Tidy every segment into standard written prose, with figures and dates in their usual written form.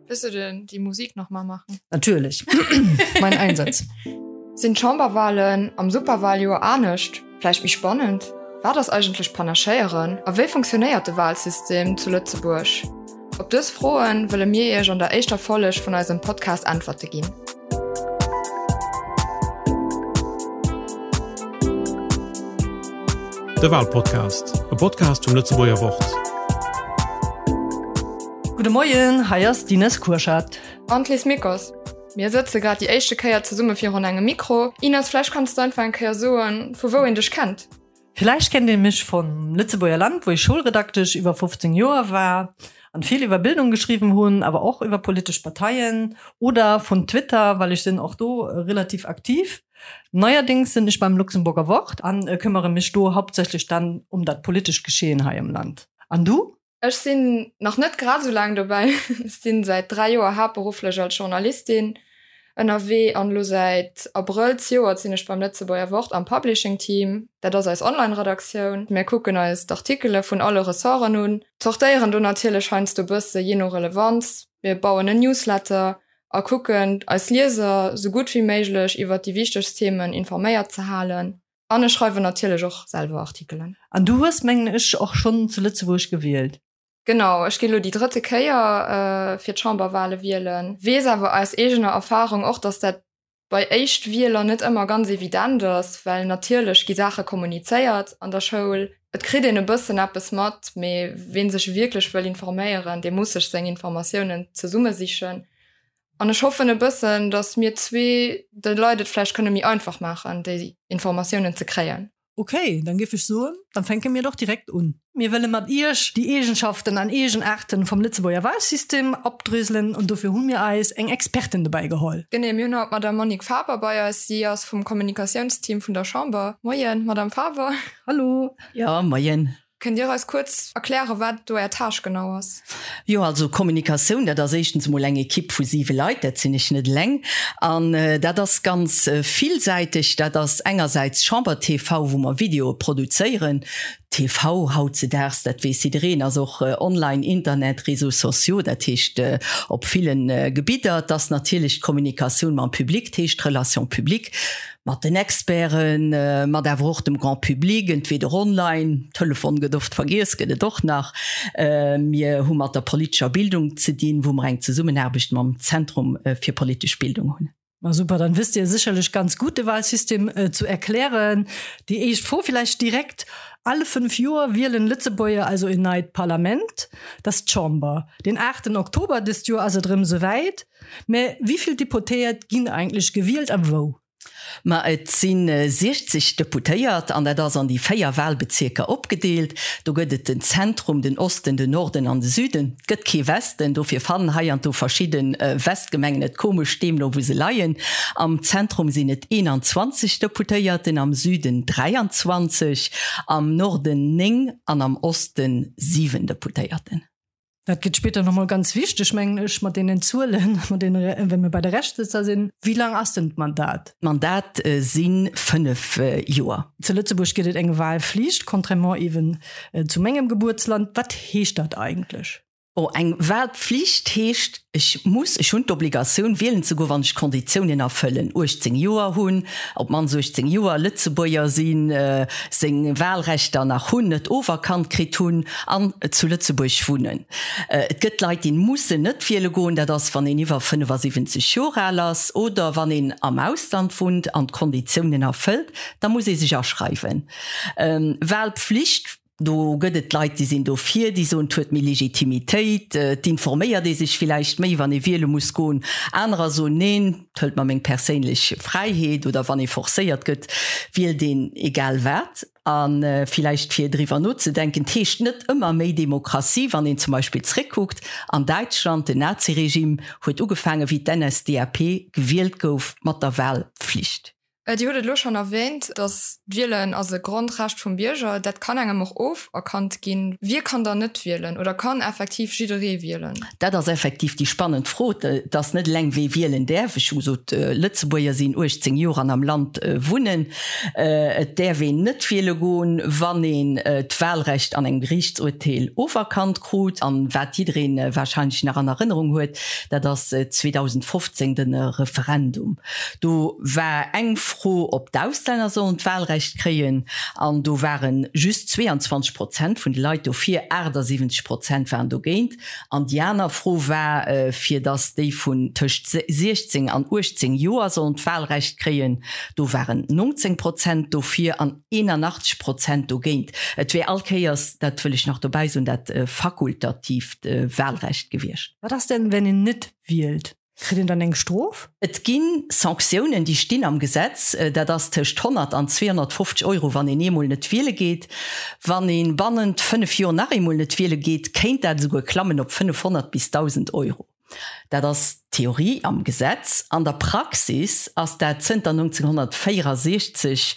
Wëlls du denn déi Musik nach mal machen? Natierlech. Mein Einsatz. Sinn d'Chamberwahlen am Superwahljoer anescht, vläicht méi spannend? Wat ass eigentlech Panaschéieren a wéi funktionéiert de Wahlsystem zu Lëtzebuerg? Op dës Froen wëlle mir Iech an der éischter Folleg vun eisem Podcast Äntwerte ginn. De Wahlpodcast, e Podcast vum Lëtzebuerger Wort. Gudde Moien, hei ass d'Ines Kurschat. An d'Liz Mickos. Mir sëtze grad déi éischte Kéier zesumme virun engem Mikro. Ines, vläicht kanns du einfach eng Kéier soen, vu wou een dech kennt? Villäicht kennt ee mech vum Lëtzebuerger Land, wou ech Schoulredaktesch iwwer 15 Joer war an vill iwwer Bildung geschriwwen hunn, awer och iwwer politesch Parteien, oder vun Twitter, well ech sinn och do relativ aktiv. Neierdéngs sinn ech beim Luxemburger Wort an këmmere mech do hauptsächlech dann um dat politescht Geschehen hei am Land. An du? Ech sinn nach net grad esou laang dobäi. Ech sinn säit 3 Joer haaptberufflech als Journalistin ënnerwee an elo säit Abrëll zejoert sinn ech beim Lëtzebuerger Wort am Publishing Team. Dat ass eis Online-Redaktioun. Mir kucken eis d'Artikele vun alle Ressorten un, zortéieren do natierlech heiansdo bësse jee no Relevanz. Mir bauen en Newsletter a kucken eis Lieser sou gutt wéi méiglech iwwert déi wichtegst Themen informéiert ze halen. An ech schreiwen natierlech och selwer Artikelen. An du hues, mengen ech, och schonn zu Lëtzebuerg gewielt? Genau, ech gi lo déi drëtte Kéier fir d'Chamberwale wielen. Weess awer aus eegener Erfarung och, datt dat bei Éischtwieler net ëmmer ganz evident ass, well natierlech gi Saache kommunizéiert an der Schoul, et kritt een e bëssen eppes mat, mee ween sech wierklech wëll informéieren, dee muss sech seng Informatiounen zesummesichen. An ech hoffen e bëssen, datt mir zwee de Leit et vläicht kënne méi einfach maachen, déi Informatiounen ze kréien. Ok, dann géif ech soen, dann fänke mir doch direkt un. Mir wëlle mat Iech déi Eegenschaften an Eegenaarten vum Lëtzebuerger Wahlsystem opdröselen an dofir hu mir eis eng Expertin dobäi geholl. Genee, mir hunn haut d'Madame Monique Faber bei eis. Si ass vum Kommunikatiounsteam vun der Chamber. Moien, Madame Faber. Hallo. Jo, moien. Kënnt Dir eis kuerz erklären, wat do Är Tâche genau ass? Jo, also Kommunikatioun, dat ass éischtens emol eng Ekipp vu siwe Leit, dat sinn ech net eleng. An dat ass ganz villsäiteg. Dat ass engersäits Chamber TV, wou mer Videoe produzéieren. TV hautzedaags, dat weess jiddereen, ass och online, Internet, Réseaux sociaux, dat heescht op ville Gebidder. Et ass natierlech d'Kommunikatioun mam Public, dat heescht d'Relations publiques. Mat den Experten, mat awer och dem Grand public, entweder online, Telefon gëtt oft vergiess, gëtt et och nach. Mir hu mat der politescher Bildung ze dinn, wou mer eng Zesummenaarbecht mam Zentrum fir politesch Bildung hunn. Ma super, dann wësst Dir sécherlech ganz gutt de Wahlsystem zu erklären. Déi éischt Fro villäicht direkt, Alle 5 Joer wielen Lëtzebuerger also en neit Parlament, dat ass d'Chamber. Den 8 Oktober dëst Joer ass et erëm esouwäit. Mä wéi vill Deputéiert ginn eigentlech gewielt a wou? Ma et si 60 Deputéiert an dat ass an déi 4 Wahlbezierker opgedeelt. Do gëtt et den Zentrum, den Osten, den Norden an de Süden. Et gëtt kee Westen, dofir fannen hei an do verschidde Westgemengen et komesch, deemno wou se leien. Am Zentrum sinn et 21 Deputéierten, am Süden 23, am Norden 9 an am Osten 7 Deputéierten. Dat gëtt spéider nach mol ganz wichteg, mengen ech, mat deenen Zuelen, mat deene, wa mir bei de Reschtsëtzer sinn. Wéi laang ass denn d'Mandat? D'Mandat si 5 Joer. Zu Lëtzebuerg gëtt et eng Wahlflicht, contrairement eeben zu mengem Gebuertsland. Wat heescht dat eigentlech? Bon, eng Wahlpflicht heescht, ech muss, ech hunn d'Obligatioun, wielen ze goen, wann ech d'Konditiounen erfëllen, 18 Joer hunn, op d'mannst 18 Joer, Lëtzebuerger sinn, seng Wahlrechter nach hunn, net oferkannt kritt hunn an zu Lëtzebuerg wunnen. Et gëtt Leit, déi mussen net wiele goen, dat ass, wann een iwwer 75 Joer al ass oder wann een am Ausland wunnt an d'Konditiounen erfëllt, da muss ee sech aschreiwen. Wahlpflicht. Do gëtt et Leit, déi sinn dofir, déi soen, et huet méi Legitimitéit, et informéiert ee sech villäicht méi, wann ee wiele muss goen. Anerer soen, neen, et hëlt mer meng perséinlech Fräiheet oder wann ee forcéiert gëtt, wielt een egal wat. A villäicht fir driwwer nozedenken, et heescht net ëmmer méi Demokratie, wann een zum Beispill zréckkuckt an Däitschland, den Naziregime huet ugefaangen, wéi d'NSDAP gewielt gouf, mat der Wahlpflicht. Dir hutt et elo schonn erwähnt, datt d'Wielen ass e Grondrecht vum Bierger. Dat kann engem och oferkannt ginn. Wie kann dann net wielen oder kann effektiv jidderee wielen? Dat ass effektiv déi spannend Fro. Et ass net eleng, wee wielen däerf. Ech hu gesot, Lëtzebuerger sinn 18 Joer an am Land wunnen. Et däerf een net wiele goen, wann een d'Wahlrecht an engem Geriichtsurteel oferkannt krut. An wat jidderee warscheinlech nach an Erënnerung huet, dat ass 2015 de Referendum. Do war eng Fro, ob d'Auslänner sollen d'Wahlrecht kréien, an do ware just 22 Prozent vun de Leit dofir, 78 Prozent waren dogéint. An déi aner Fro war, fir datt déi vun tëscht 16 an 18 Joer sollen d'Wahlrecht kréien, do waren 19 Prozent dofir an 81 Prozent dogéint. Et wär all Kéiers, dat wëll ech nach dobäi soen, dat fakultatiivt Wahlrecht gewiescht. Wat ass denn, wenn een net wielt? Kritt een dann eng Strof? Et gi Sanktiounen, déi stinn am Gesetz. Dat ass tëscht 100 an 250 Euro, wann een eemol net wiele geet. Wann ee bannent 5 Joer nach eemol net wiele geet, kéint dat esouguer klammen op 500 bis 1.000 Euro. Dat ass d'Theorie am Gesetz. An der Praxis ass dat zënter 1964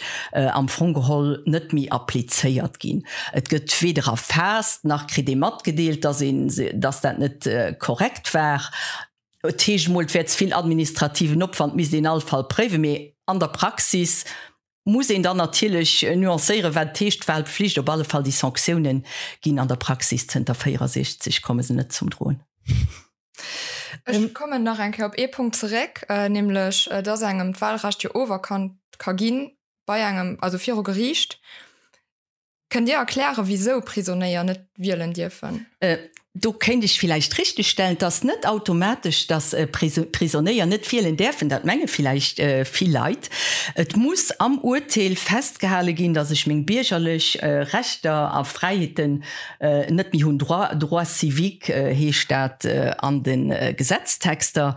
am Fong geholl net méi applizéiert ginn. Et gëtt weder erfaasst, nach kritt ee matgedeelt, dass een, dass dat net korrekt war. Et heescht emol, et wär ze vill administrativen Opwand, misst een all Fall préiwen. Mee an der Praxis muss een dann natierlech nuancéieren, wat et heescht, Wahlpflicht. Op alle Fall, déi Sanktiounen ginn an der Praxis zënter 64, komme se net zum Droen. Ech kommen nach eng Kéier op ee Punkt zeréck, nämlech dass engem d'Wahlrecht jo oferkannt ka ginn bei engem, also viru Geriicht. Kënnt Dir erklären, wisou Prisonéier net wielen dierfen? Do kéint ech villäicht richtegstellen, et ass net automatesch, datt Prisonéier net wielen däerfen. Dat menge villäicht vill Leit. Et muss am Urteel festgehale ginn, datt ech meng biergerlech Rechter a Fräiheeten net méi hunn. Droits, droits civiques heescht dat an de Gesetztexter.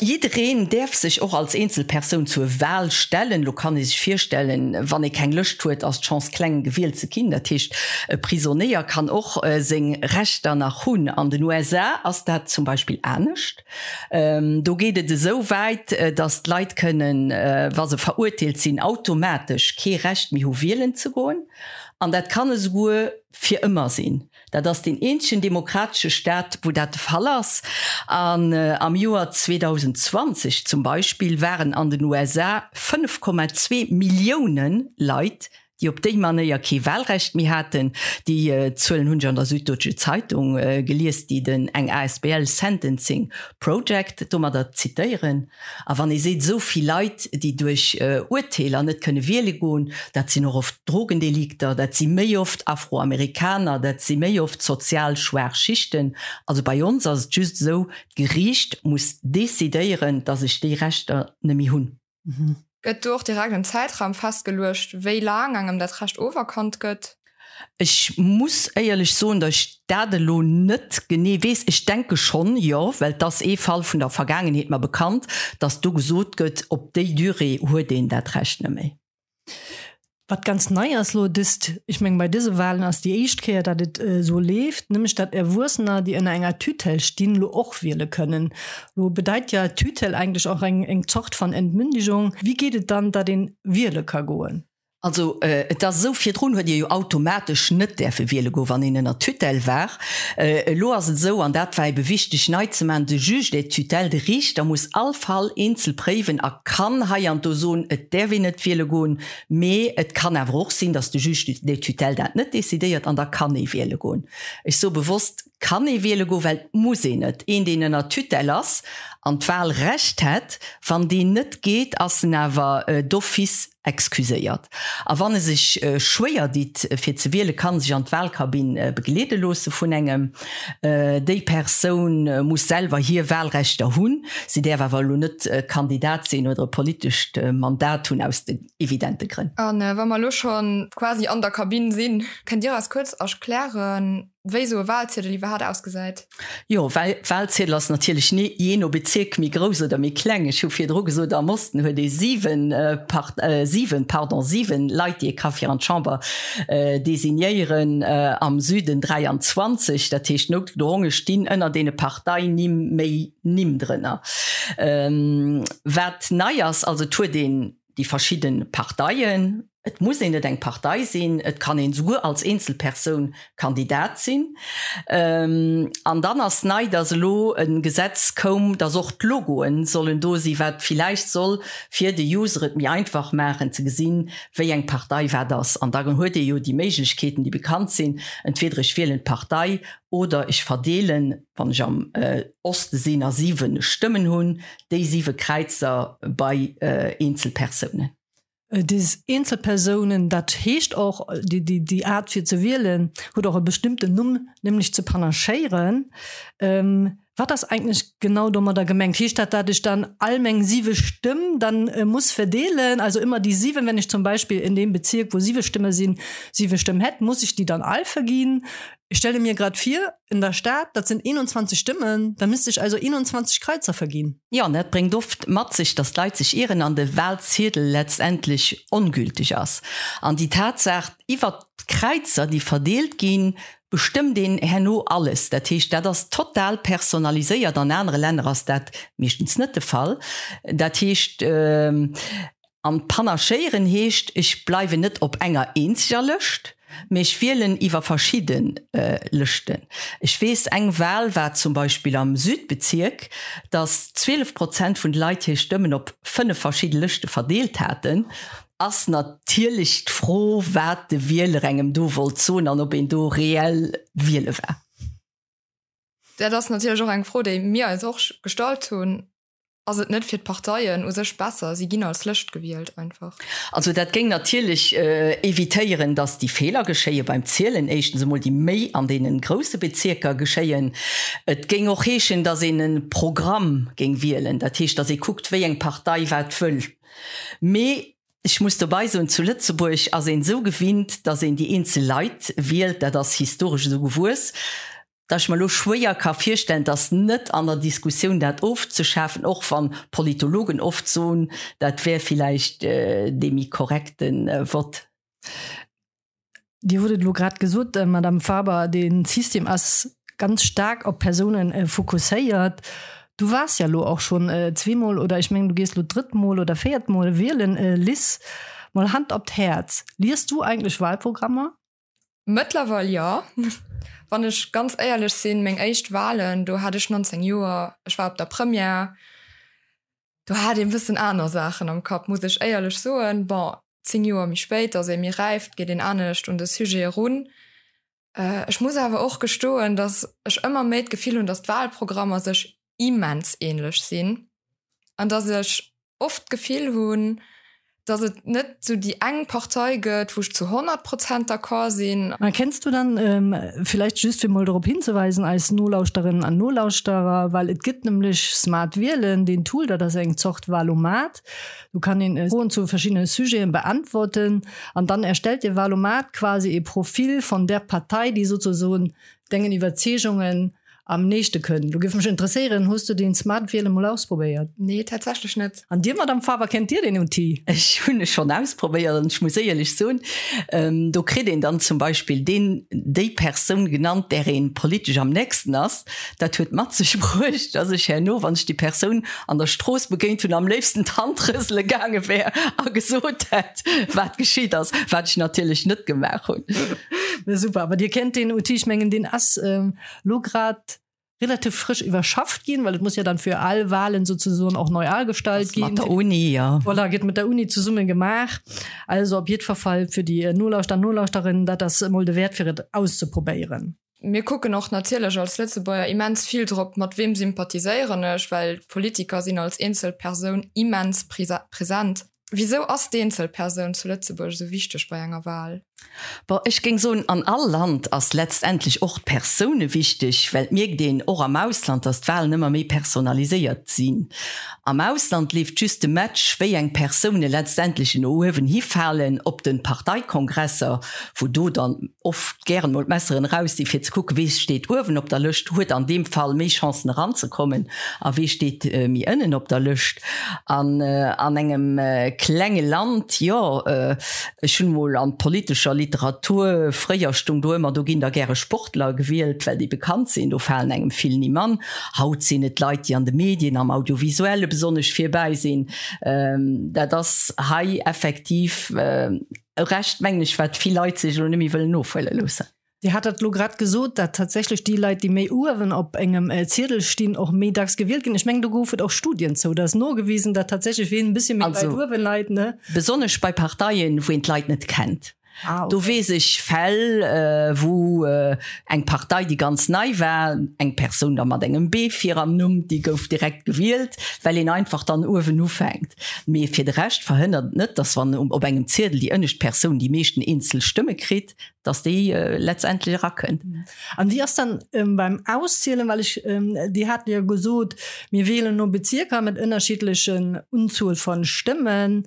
Jiddereen däerf sech och als Eenzelpersoun zur Wahl stellen. Lo kann ee sech virstellen, wann ee keng Lëscht huet, ass d'Chance kleng, gewielt ze ginn. Dat heescht, e Prisonéier kann och seng Rechter nach hunn. An den USA ass dat zum Beispill anescht. Do geet et esou wäit, datt d'Leit kënnen, wa se verurteelt sinn, automatesch kee Recht méi hu wielen ze goen. An dat kann esouguer fir ëmmer sinn. Dat ass deen eenzegen demokratesche Staat, wou dat de Fall ass. An am Joer 2020 zum Beispill waren an den USA 5,2 Millioune Leit, déi op déi Manéier kee Wahlrecht méi haten. Déi Zuelen hunn ech an der Süddeutsche Zeitung gelies, déi den eng asbl Sentencing Project domadder zitéieren. A wann ee seet, esou vill Leit, déi duerch Urteeler net kënne wiele goen, dat sinn och oft Drogendelikter, dat si méi oft Afroamerikaner, dat si méi oft sozial schwaach Schichten. Also bei ons ass et just esou, d'Geriicht muss decidéieren, datt ech déi Rechter net méi hunn. Gëtt do och direkt en Zäitraum festgeluecht, wéi laang engem dat Recht oferkannt gëtt? Ech muss éierlech soen, datt ech dat elo net genee weess. Ech denke schonn, jo, well et ass ee Fall vun der Vergaangenheet mer bekannt, datt do gesot gëtt, op déi Durée huet een dat Recht net méi. Wat ganz nei ass elo dëst, ech mengen bei dëse Wahlen ass déi éischt Kéier, datt et esou leeft, nämlech datt Erwuessener, déi ënner enger Tutelle stinn, elo och wiele kënnen. Elo bedeit ja Tutelle eigentlech och eng eng Zort van Entmündigung. Wéi geet et dann, datt een wiele ka goen? Also et ass esou, virdrun huet ee jo automatesch net däerfe wiele goen, wann een ënner Tutelle war. Elo ass et esou, an dat war ebe wichteg nei ze maachen, de Juge des tutelles, de Riichter muss all Fall eenzel préiwen a kann hei an do soen, et däerf een net wiele goen. Mee et kann awer och sinn, datt de Juge des tutelles dat net decidéiert an da kann ee wiele goen. Ech soe bewosst kann ee wiele goen, well et muss een net. Een, deen ënner Tutelle ass an d'Wahlrecht hätt, wann deen net geet, ass en awer d'office excuséiert. A wann e sech schwéier ditt fir ze wielen, kann e sech an d'Wahlkabinn begleede loosse vun engem. Déi Persoun muss selwer hir Wahlrechter hunn, si däerf awer elo net Kandidat sinn oder e politescht Mandat hunn, aus den evidente Grënn. A wa mer elo scho quasi an der Kabinn sinn, kënnt Dir eis kuerz erklären? wéi esou e Wahlziedel iwwerhaapt ausgesäit? Jo, well Wahlziedel ass natierlech ni jee no Bezierk méi grouss oder méi kleng. Ech hu virdru gesot, am Osten huet ee 7 Part, 7, pardon, 7 Leit, déi ee ka fir an d'Chamber designéieren, am Süden 23. Dat heescht, noutgedronge stinn ënner deene Parteinimm méi Nimm drënner. Wat nei ass, also et huet een déi verschidde Parteien, et muss een net eng Partei sinn, et kann een esouguer als Eenzelpersoun Kandidat sinn. An dann ass nei, datt elo e Gesetz koum, datt och d'Logoen sollen do sinn, wat villäicht soll fir de User et méi einfach maachen ze gesinn, wéi eng Partei wat ass. An da huet ee jo déi Méiglechkeeten, déi bekannt sinn, entweder ech wielen d'Partei oder ech verdeelen, wann ech am Oste sinn a 7 Stëmmen hunn, déi 7 Kräizer bei eenzel Persounen. Des eenzel Persounen, dat heescht och, déi Aart fir ze wielen huet och e bestëmmten Numm, nämlech ze panachéieren. Wat ass eigentlech genau domadder gemengt? Heescht dat, dat ech dann all meng 7 Stëmm dann muss verdeelen, also ëmmer déi 7, wenn ech zum Beispill in deem Bezierk, wou 7 Stëmme sinn, 7 Stëmm hätt, muss ech déi dann all verginn? Ich stelle mir grad vir, in der Stad, dat sinn 21 Stëmmen, da misst ech also 21 Kraizer verginn. Jo, an dat bréngt oft mat sech, dass d'Leit sech ieren an de Wahlziedel letztendlech ongülteg ass. An déi Tatsaach iwwert d'Kräizer, déi verdeelt ginn, bestëmmt een herno alles. Dat heescht, dat ass total personaliséiert. An anere Länner ass dat meeschtens net de Fall. Dat heescht, An panachéieren heescht, ech bleiwen net op enger eenzeger Lëscht, mee ech wielen iwwer verschidde Lëschten. Ech weess, eng Wahl war zum Beispill am Südbezierk, datt 12 Prozent vun de Leit hir Stëmmen op 5 verschidde Lëschte verdeelt haten. Ass natierlech d'Fro, wat de Wieler engem do wollt soen an ob een do reell wiele war. Dat ass natierlech och eng Fro, déi mir eis och gestallt hunn. Ass et net fir d'Parteien u sech besser, si ginn als Lëscht gewielt einfach? Also dat géing natierlech evitéieren, datt déi Feeler geschéie beim Zielen, éischtens emol déi méi an deene grousse Bezierker geschéien. Et géing och heeschen, datt een e Programm géing wielen, dat heescht, datt ee kuckt, wéi eng Partei wat wëll. Mee ech muss dobei soen, zu Lëtzebuerg ass een esou gewinnt, datt een déi eenzel Leit wielt, dat ass historesch esou gewuess, dass ech mer elo schwéier ka virstellen, dass net an der Diskussioun dat ofzeschafen, och wann Politologen oft soen, dat wär villäicht dee méi korrekte Vott. Dir hutt et elo grad gesot, Madame Faber, dee System ass ganz staark op Persounen fokusséiert. Du waars ja elo och schonn zweemol, oder ech mengen, du gees elo d'drëtt Mol oder véiert Mol wielen. Liz, mol Hand op d'Häerz, Liest du eigentlech Wahlprogrammer? Mëttlerweil jo. Wann ech ganz éierlech sinn, meng éischt Walen, do hat ech 19 Joer, ech war op der Première, do hat een e bëssen aner Saachen am Kapp, muss ech éierlech soen. Bon, 10 Joer méi spéit ass ee méi räif, geet een anescht un de Sujet erun. Ech muss awer och gestoen, datt ech ëmmer méi d'Gefill hunn, datt d'Walprogrammer sech immens ähnlech sinn an datt ech oft d'Gefill hunn, dass et net sou déi eng Partei gëtt, wou ech zu 100 Prozent d'accord sinn. Mä kenns du dann, villäicht just fir mol dorop hinzeweisen, eis Nolauschterinnen an Nolauschterer, well et gëtt nämlech Smart Wielen, deen Tool, dat ass eng Zort Wahlomat, do kann een Froen zu verschiddene Sujeten beantworten an dann erstellt de Wahlomat quasi e Profil von der Partei, déi sozusagen dengen Iwwerzeegungen am nächste kënnt. Lo géif mech interesséieren, hues du deen Smart Wielen mol ausprobéiert? Nee, tatsächlech net. An dir, Madame Faber, kennt dir deen Outil? Ech hunn e schonn ausprobéiert an ech muss éierlech soen, do kritt een dann zum Beispill deen, déi Persoun genannt, där een politesch am nächsten ass. Dat huet mat sech bruecht, dass ech herno, wann ech déi Persoun an der Strooss begéint hunn, am léifsten d'Hand rësele gaange wär a gesot hätt, wat geschitt ass, wat ech natierlech net gemaach hunn. Super, awer dir kennt deen Outil, ech mengen deen ass lo grad relativ frësch iwwerschafft ginn, well et muss ja dann fir all Wahlen sozusagen och neu agestallt ginn. Mat der Uni, ja. Voilà, gëtt mat der Uni zesumme gemaach. Also op jiddwer Fall fir déi Nolauschter an Nolauschterinnen, dat ass emol de Wäert fir et auszeprobéieren. Mir kucken och natierlech als Lëtzebuerger immens vill drop, mat weem sympathiséieren ech, well d'Politiker sinn als eenzel Persoun immens present. Wisou ass d'Eenzelpersoun zu Lëtzebuerg esou wichteg bei enger Wahl? Bon, ech géing soen, an all Land ass letztendlech och d'Persoune wichteg, well et mierkt een och am Ausland, datt d'Wahlen ëmmer méi personaliséiert sinn. Am Ausland leeft just de Match, wéi eng Persoune letztendlech no uewen hi falen op de Parteikongresser, wou do dann oft gären mol d'Messeren eraus sinn, fir ze kucken, wee steet uewen op der Lëscht, huet an deem Fall méi Chancen eranzekommen a wee steet méi ënnen op der Lëscht. An an engem klenge Land, jo, Ech hunn mol an politescher Literatur, fréier stung do ëmmer, do ginn da gäre Sportler gewielt, well déi bekannt sinn, do falen engem vill Nimm an. Haut sinn et Leit, déi an de Medien, am Audiovisuelle besonnesch virbäi sinn. Dat ass hei effektiv e Recht, mengen ech, wat vill Leit sech elo net méi wëllen ofhuele loossen. Dir hat dat elo grad gesot, dat tatsächlech déi Leit, déi méi uewen op engem Ziedel stinn, och méi dacks gewielt ginn. Ech mengen, do gouf et och Studien zou. Dat ass nogewisen, dat tatsächlech ween e bëssche méi weit uewe leit, ne? Besonnesch bei Parteien, wou een d'Leit net kennt. Do weess ech Fäll, wou eng Partei, déi ganz nei war, eng Persoun da mat engem B vir am Numm, déi gouf direkt gewielt, well een einfach dann uewen ufänkt. Mee fir de Rescht verhënnert et net, datt wann op engem Ziedel déi ënnescht Persoun déi meeschten eenzel Stëmme kritt, dass déi letztendlech erakënnt. An wéi ass dann beim Auszielen, well ech, Dir hat jo gesot, mir wielen no Bezierker mat ënnerschiddlechen Unzuel von Stëmmen.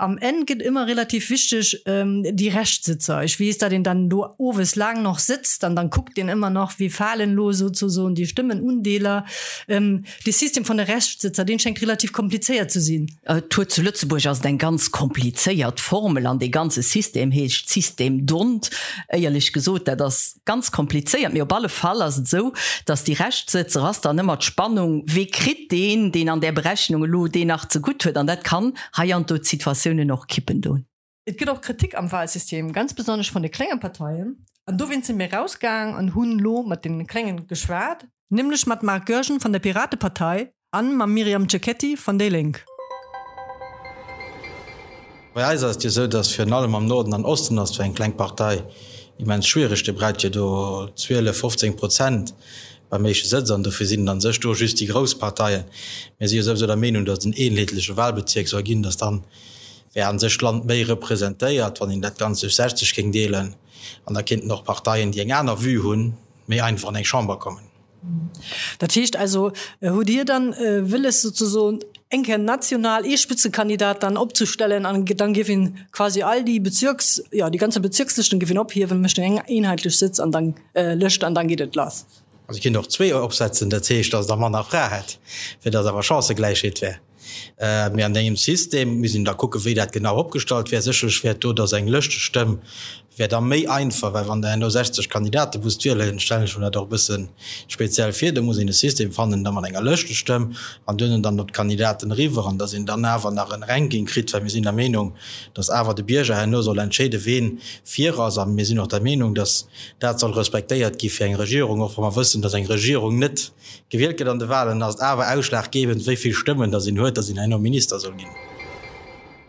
Am Enn gëtt ëmmer relativ wichteg déi Reschtsëtzer. Ech weess, datt een dann do owes laang noch sëtzt an dann kuckt een ëmmer nach, wéi falen elo souzesoen déi Stëmmenundeeler. Dee System von de Reschtsëtzer, deen schéngt relativ komplizéiert ze sinn. Et huet zu Lëtzebuerg ass et eng ganz komplizéiert Formel an dee ganze System heescht System d'Hondt. Éierlech gesot, dat ass ganz komplizéiert, mee op alle Fall ass et esou, datt déi Reschtsëtzer ass dann ëmmer d'Spannung, wee kritt deen, deen an där Berechnung elo deen nach zegutt huet an dat kann heiansdo d'Situatiounen och kippen do. Et gëtt och Kritik am Wahlsystem, ganz besonnesch vun de klenge Parteien. An dowéinst si mir rausgaang an hunn elo mat deene Kléngen geschwat, nämlech mat Marc Goergen vun der Piratepartei an mam Myriam Cecchetti vun déi Lénk. Bei eis ass et jo esou, datt virun allem am Norden an Osten ass et fir eng kleng Partei immens schwiereg. Dir braucht jo do 12, 15 Prozent beim éischte Sëtz an dofir sinn et a sech do just déi grouss Parteien. Mir si jo souwisou der Meenung, datt et en eenheetleche Wahlbezierk soll ginn, datt dann wär an sech d'Land méi representéiert, wann een dat Ganzt duerch 60 géing deelen. An da kéinten och Parteien, déi eng aner Vue hunn, méi einfach an eng Chamber kommen. Dat heescht also, hutt Dir dann wëlles souzesoen eng Kéier national ee Spitzekandidat dann opzestellen an dann géif een quasi all déi Bezirks, jo déi ganze Bezirkslëschten géif een ophiewen, mécht eng eenheitlech Sëtz an dann Lëscht an dann geet et lass? Also et kéint och zwee opsetzen, dat heescht, datt et da manner Frae hätt, fir datt awer Chancëgläichheet wär. Mee an engem System misst een da kucken, wéi dat genau opgestallt wär. Sécherlech wär et do, datt eng Lëschtestëmm wär da méi einfach, well wann Der herno 60 Kandidate musst wielen, stellen ech mer dat och e bësse speziell vir, do muss een e System fannen da mat enger Lëschtestëmm an duerno dann op d'Kandidaten eriwwer an datt een dann awer nach en Ranking kritt, well mir sinn der Meenung, datt awer de Bierger herno soll entscheeden, ween vir ass. A mir sinn och der Meenung, datt dat soll respektéiert gi fir eng Regierung, och wa mer wëssen, datt eng Regierung net Gewielt gëtt an de Wahlen, ass et awer ausschlaggebend, wéi vill Stëmmen datt een huet, datt een herno Minister soll ginn.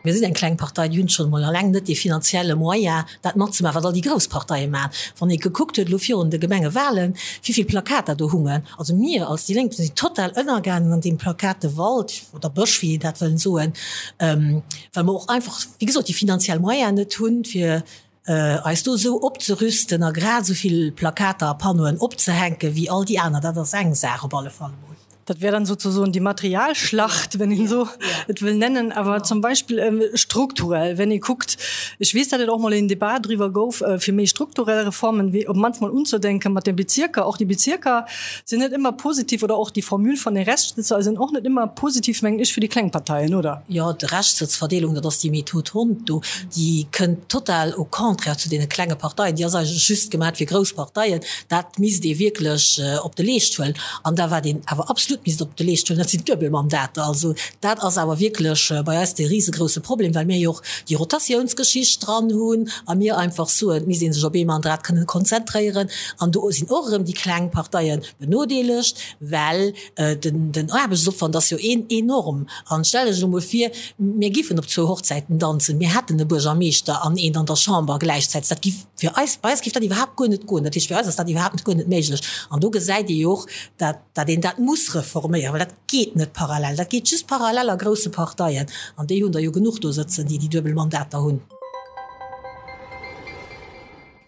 Mir sinn eng kleng Partei, déi hunn schonn emol alleng net dee finanzielle Moyen, dat matzemaachen, wat all déi grouss Parteie maachen. Wann ee gekuckt huet elo virun de Gemengewahlen, wéi vill Plakater do hungen, also mir als déi Lénk sinn total ënnergaangen an deem Plakatewald oder Bësch, wéi een dat wëllen soen, well mer och einfach, wéi gesot, déi finanziell Moyen net hunn, fir eis do esou opzerüsten a grad esou vill Plakater a Panneauen opzehänken, wéi all déi aner, dat ass eng Saach op alle Fall emol. Dat wär dann sozusagen die Materialschlacht, wenn een esou et wëll nennen. Awer zum Beispill strukturell, wenn ee kuckt, ech weess, datt et och mol een Debat driwwer gouf, fir méi strukturell Reformen, wéi op d'mannst mol unzedenken mat de Bezierker. Och déi Bezierker sinn net ëmmer positiv, oder och déi Formule von den Restsitzer sinn och net ëmmer positiv, mengen ech, fir déi kleng Parteien, oder? Jo, d'Reschtsëtzverdeelung, dat ass déi Method Hondt do, déi kënnt total au contraire zu deene klenge Parteien. Déi ass eigentlech just gemat fir grouss Parteien. Dat misst ee wierklech op de Leescht huelen. An da wat een awer absolut misst op de Leescht huelen, dat sinn d'Duebelmandater. Also dat ass awer wierklech bei eis dee risegrousse Problem, well mir jo och déi Rotatiounsgeschicht dran hunn a mir einfach soen, et misst ee sech op ee Mandat kënnen konzentréieren. An do sinn och erëm déi kleng Parteie benodeelegt, well den Aarbechtsopwand ass jo een enorm. An stellt Iech elo mol vir, mir giffen op zwou Hochzäiten danzen, mir hätten e Buergermeeschter an een an der Chamber gläichzäiteg. Dat giff fir eis, bei eis giff dat iwwerhaapt guer net goen. Dat heescht, fir eis ass dat iwwerhaapt guer net méiglech. An do gesäit ee jo och, dat dat een dat muss reforméieren, well dat geet net parallel. Dat geet just parallel a grousse Parteien. An déi hunn der jo genuch do sëtzen, déi déi duebel Mandater hunn.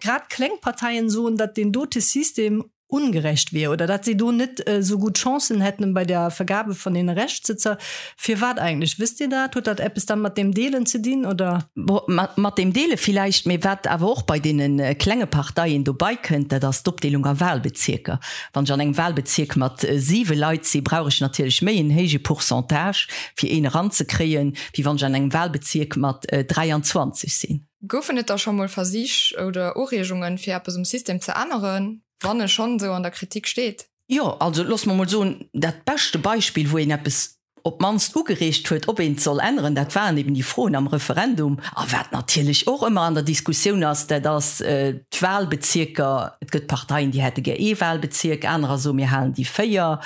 Grad kleng Parteien soen, datt deen dote System ungerecht wier oder datt si do net esou gutt Chancen hätten bei der Vergabe von den Reschtsëtzer. Firwat eigentlech? Wësst Dir dat? Huet dat eppes dann mat deem Deelen ze dinn, oder? Bon, mat deem Deele villäicht, mee wat awer och bei deene klenge Parteien dobei kënnt, dat ass d'Opdeelung a Wahlbezierker. Wann ech an engem Wahlbezierk mat siwe Leit si, brauch ech natierlech méi en héije Pourcentage, fir een eranzekréien, wéi wann ech an engem Wahlbezierk mat 23 sinn. Goufen et da scho mol Versich oder Ureegungen, fir eppes um System ze änneren, wann e schonn esou an der Kritik steet? Jo, also looss mer mol soen, dat beschte Beispill, wou een eppes op d'mannst ugereegt huet, ob een et soll änneren, dat waren eben déi Froen am Referendum. A wat natierlech och ëmmer an der Diskussioun ass, dat ass d'Wahlbezierker. Et gëtt Parteien, déi hätte gär ee Wahlbezierk, anerer soen, mir halen déi 4.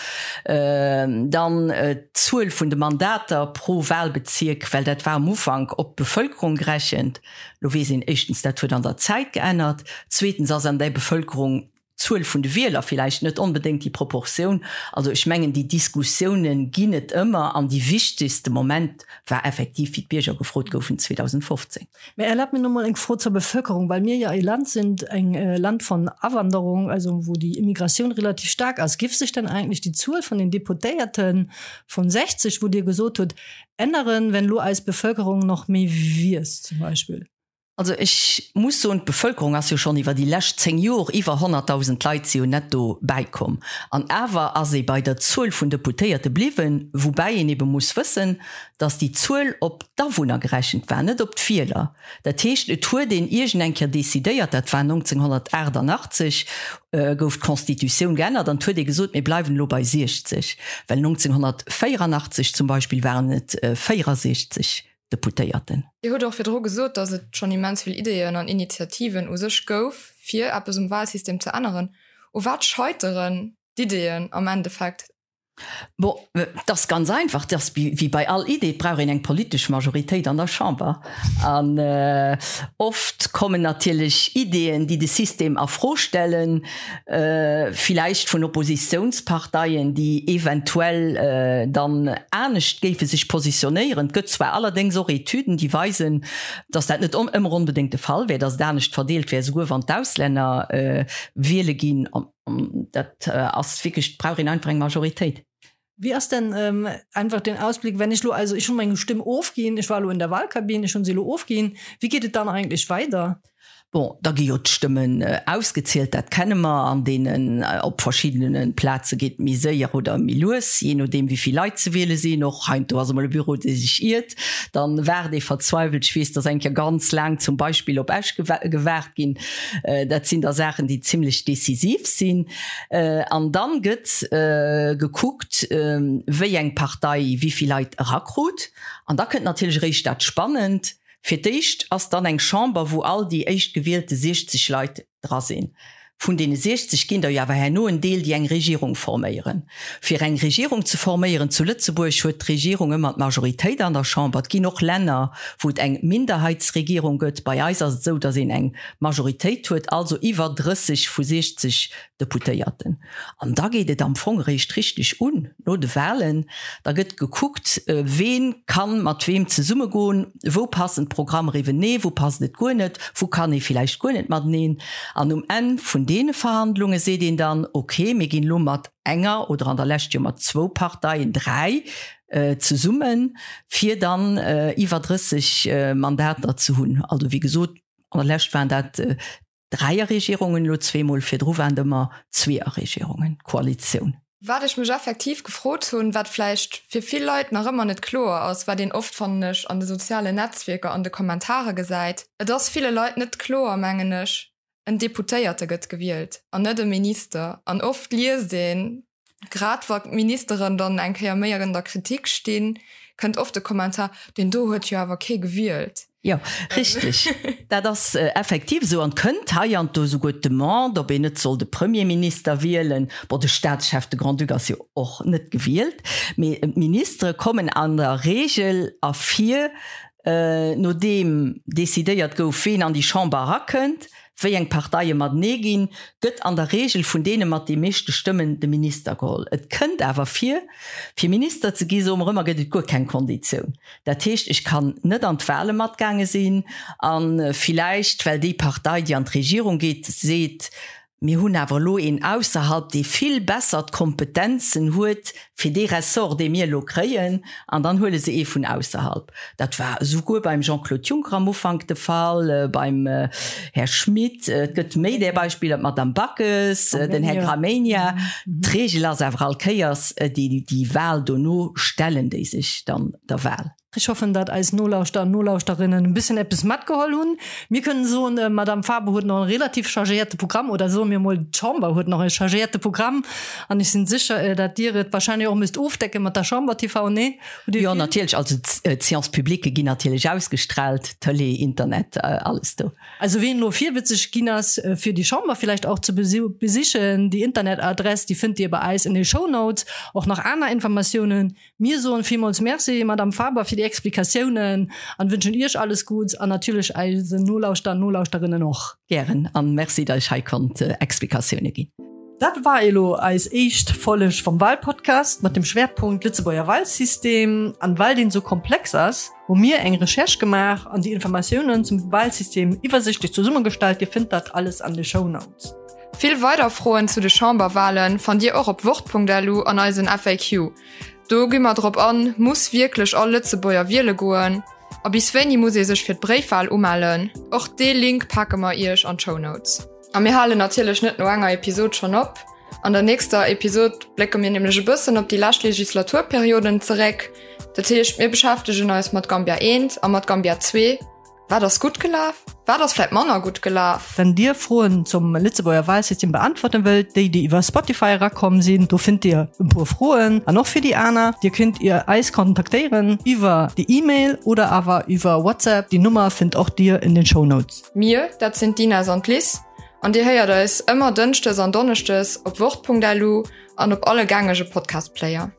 Dann d'Zuel vun de Mandater pro Wahlbezierk, well dat war am Ufank op d'Bevëlkerung gerechent. Lo weess een éischtens, dat huet an der Zäit geännert. Zweetens ass an där Bevëlkerung d'Zuel vun de Wieler villäicht net onbedéngt déi Proportioun. Also ech mengen, déi Diskussiounen ginn et ëmmer an déi wichtegste Moment war effektiv, wéi d'Bierger gefrot goufen 2015. Mä erlaabt mir nomol eng Fro zur Bevölkerung, well mir jo e Land sind, eng Land von Awanderung, also wou déi Immigratioun relativ staark ass. Giff sech dann eigentlech déi Zuel vun den Deputéierten vun 60, wou Dir gesot hutt, änneren, wenn elo eis Bevölkerung nach méi wiisst zum Beispill? Also ech muss soen, d'Bevölkerung ass jo schonn iwwer déi lescht 10 Jor iwwer 100.000 Leit si jo netto bäikomm. An awer ass ee bei der Zuel vun Deputéierte bliwwen, woubäi een ebe muss wëssen, datt déi Zuel op d'Awunner gerechent war, net op d'Wieler. Dat heescht, et huet een iergend eng Kéier decidéiert, dat war 1988, gouf d'Constitutioun geännert an et huet ee gesot, mir bleiwen elo bei 60, well 1984 zum Beispill waren et 64. Deputéierten. Dir hutt och virdru gesot, datt et schonn immens vill Ideeën an Initiativen u sech gouf, fir eppes um Wahlsystem ze änneren. U wat scheiteren d'Ideeën am Endeffekt? Bon, et ass ganz einfach, et ass wéi bei all Idee, et brauch een eng politesch Majoritéit an der Chamber. An oft kommen natierlech Ideeën, déi de System a Fro stellen, villäicht vun Oppositiounsparteien, déi eventuell dann anescht géife sech positionéieren. Et gëtt zwar allerdéngs och Etüden, déi weisen, datt dat net ëmmer onbedéngt de Fall wär, datt et anescht verdeelt wär, esouguer wann d'Auslänner wiele ginn. Dat ass wierklech, et brauch een einfach eng Majoritéit. Wéi ass denn einfach den Ausblick, wenn ech lo, also ech hunn meng Stimm ofginn, ech war elo in der Wahlkabinn, ech hunn se elo ofginn, wéi geet et dann eigentlech weider? Bon, da gi jo d'Stëmmen ausgezielt, dat kenne mer, an deenen op verschiddene Plaze geet et méi séier oder méi lues, jee nodeem wéi vill Leit ze wiele sinn. Och heiansdo ass emol e Büro, dee sech iert, dann waart ee verzweiwelt. Ech weess, dass eng Kéier ganz laang zum Beispill op Esch gewaart ginn. Dat sinn da Saachen, déi zimlech decisiv sinn. An dann gëtt gekuckt, wéi eng Partei wéi vill Leit erakrut. An da kënnt natierlech eréischt dat Spannend. Fir d'éischt ass dann eng Chamber, wou all déi éischtgewielte 60 Leit dra sinn. Vun deene 60 ginn der jo awer herno en Deel, déi eng Regierung forméieren. Fir eng Regierung ze forméieren zu Lëtzebuerg, huet d'Regierung ëmmer d'Majoritéit an der Chamber. Et ginn och Länner, wou et eng Minderheitsregierung gëtt. Bei eis ass et esou, datt een eng Majoritéit huet, also iwwer 30 vu 60 Deputéierten. An da geet et am Fong eréischt richteg un, no de Wahlen. Da gëtt gekuckt, ween kann mat weem zesummegoen, wou passen d'Programmer iwwenee, wou passt et guer net, wou kann ee villäicht guer net mateneen. An um Enn vun deene Verhandlunge seet een dann, ok, mir ginn elo mat enger oder an der Lescht jo mat zwou Parteien, dräi, zesummen, fir dann iwwer 30 Mandater ze hunn. Also wéi gesot, an der Lescht waren dat Dräierregierungen, elo zweemol, virdru waren et ëmmer Zweeërregierungen, Koalitioun. Wat ech mech effektiv gefrot hunn, wat vläicht fir vill Leit nach ëmmer net kloer ass, wat een oft, fannen ech, an de sozialen Netzwierker an de Kommentare gesäit, et ass ville Leit net kloer, mengen ech, en Deputéierte gëtt gewielt an net e Minister. An oft liest een, Grad wa Ministeren dann eng Kéier méi an der Kritik stinn, kënnt oft de Kommentar, deen do huet jo awer kee gewielt. Jo, richteg. Dat ass effektiv esou. An et kënnt heiansdo esouguer d'Demande, ob een net soll de Premierminister wielen. Bon, de Staatschef, de Grand-Duc ass jo och net gewielt, mee d'Ministere kommen an der Regel ervir, nodeem decidéiert gouf, ween an déi Chamber erakënnt. wéi eng Parteie matenee ginn, gëtt an der Reegel vun deene mat de meeschte Stëmmen de Minister geholl. Et kënnt awer vir, fir Minister ze gi, soe mer ëmmer, gëtt et guer keng Konditioun. Dat heescht, ech kann net an d'Wahle matgaange sinn a villäicht, well déi Partei, déi an d'Regierung geet, seet, Mir hunn awer elo een ausserhalb, dee vill besser d'Kompetenzen huet fir dee Ressort, dee mir elo kréien, an dann huele se ee vun ausserhalb. Dat war esouguer beim Jean-Claude Juncker am Ufank de Fall, beim Här Schmit. Et gëtt méi där Beispiller, d'Madame Backes, den Här Gramegna. D'Regel ass awer all Kéiers, déi Wahl dono stellen déi sech dann der Wahl. Ech hoffen, dat eis Nolauschter an Nolauschterinnen e bëssen eppes matgeholl hunn. Mir kënnen soen, d'Madame Faber huet nach e relativ chargéierte Programm, oder soe mir emol, d'Chamber huet nach e chargéierte Programm. An ech sinn sécher, dat Dir et wahrscheinlech och müsst ofdecke mat der Chamber TV, nee? Hutt Dir Jo, vill? natierlech. Also d'Séances publiques ginn natierlech ausgestrahlt, Tëlee, Internet, alles do. Also ween elo virwëtzeg ginn ass, fir déi Chamber villäicht och ze besichen, déi Internetadress, déi fënnt Dir bei eis en de Shownotes. Och nach aner Informatiounen Mir soen villmools Merci, Madame Faber, fir déi Explikatiounen an wënschen Iech alles Gudds an natierlech eisen Nolauschter an Nolauschterinnen och. Gären an Merci, datt ech hei konnt Explikatioune ginn. Dat war elo eis éischt Folleg vum Wahlpodcast mat dem Schwerpunkt Lëtzebuerger Wahlsystem. An well deen esou komplex ass, hu mir eng Recherche gemaach an déi Informatiounen zum Wahlsystem iwwersichtlech zesummegestallt. Dir fënnt dat alles an de Shownotes. Vill weider Froen zu de Chamberwahlen fannt Dir och op wort.lu an eisen FAQ. Do gi mer drop an, Muss wierklech all Lëtzebuerger wiele goen? A bis wéini muss ee sech fir d'Bréifwal umellen? Och dee Link pake mer iech an d'Shownotes. A mir halen natierlech net no enger Episod schonn op. An der nächster Episod blécke mir nämlech e bëssen op déi lescht Legislaturperioden zeréck. Dat heescht, mir beschäftegen eis mat Gambia I a mat Gambia ii. Wat ass gutt gelaf? Wat ass vläit manner gutt gelaf? Wenn Dir Froen zum Lëtzebuerger Wahlsystem beantworten wëllt, déi déi iwwer Spotify erakomm sinn, do fënnt Dir e puer Froen an och fir déi aner. Dir kënnt Dir eis kontaktéieren iwwer déi E-Mail oder awer iwwer WhatsApp. Déi Nummer fënnt och Dir in den Shownotes. Mir, dat sinn d'Ines an d'Liz an Dir héiert eis ëmmer dënschdes an donneschdes op wort.lu an op alle gängege Podcast-Player.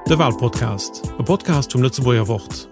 De Walpodcast, e Podcast vum Lëtzebuerger Wort.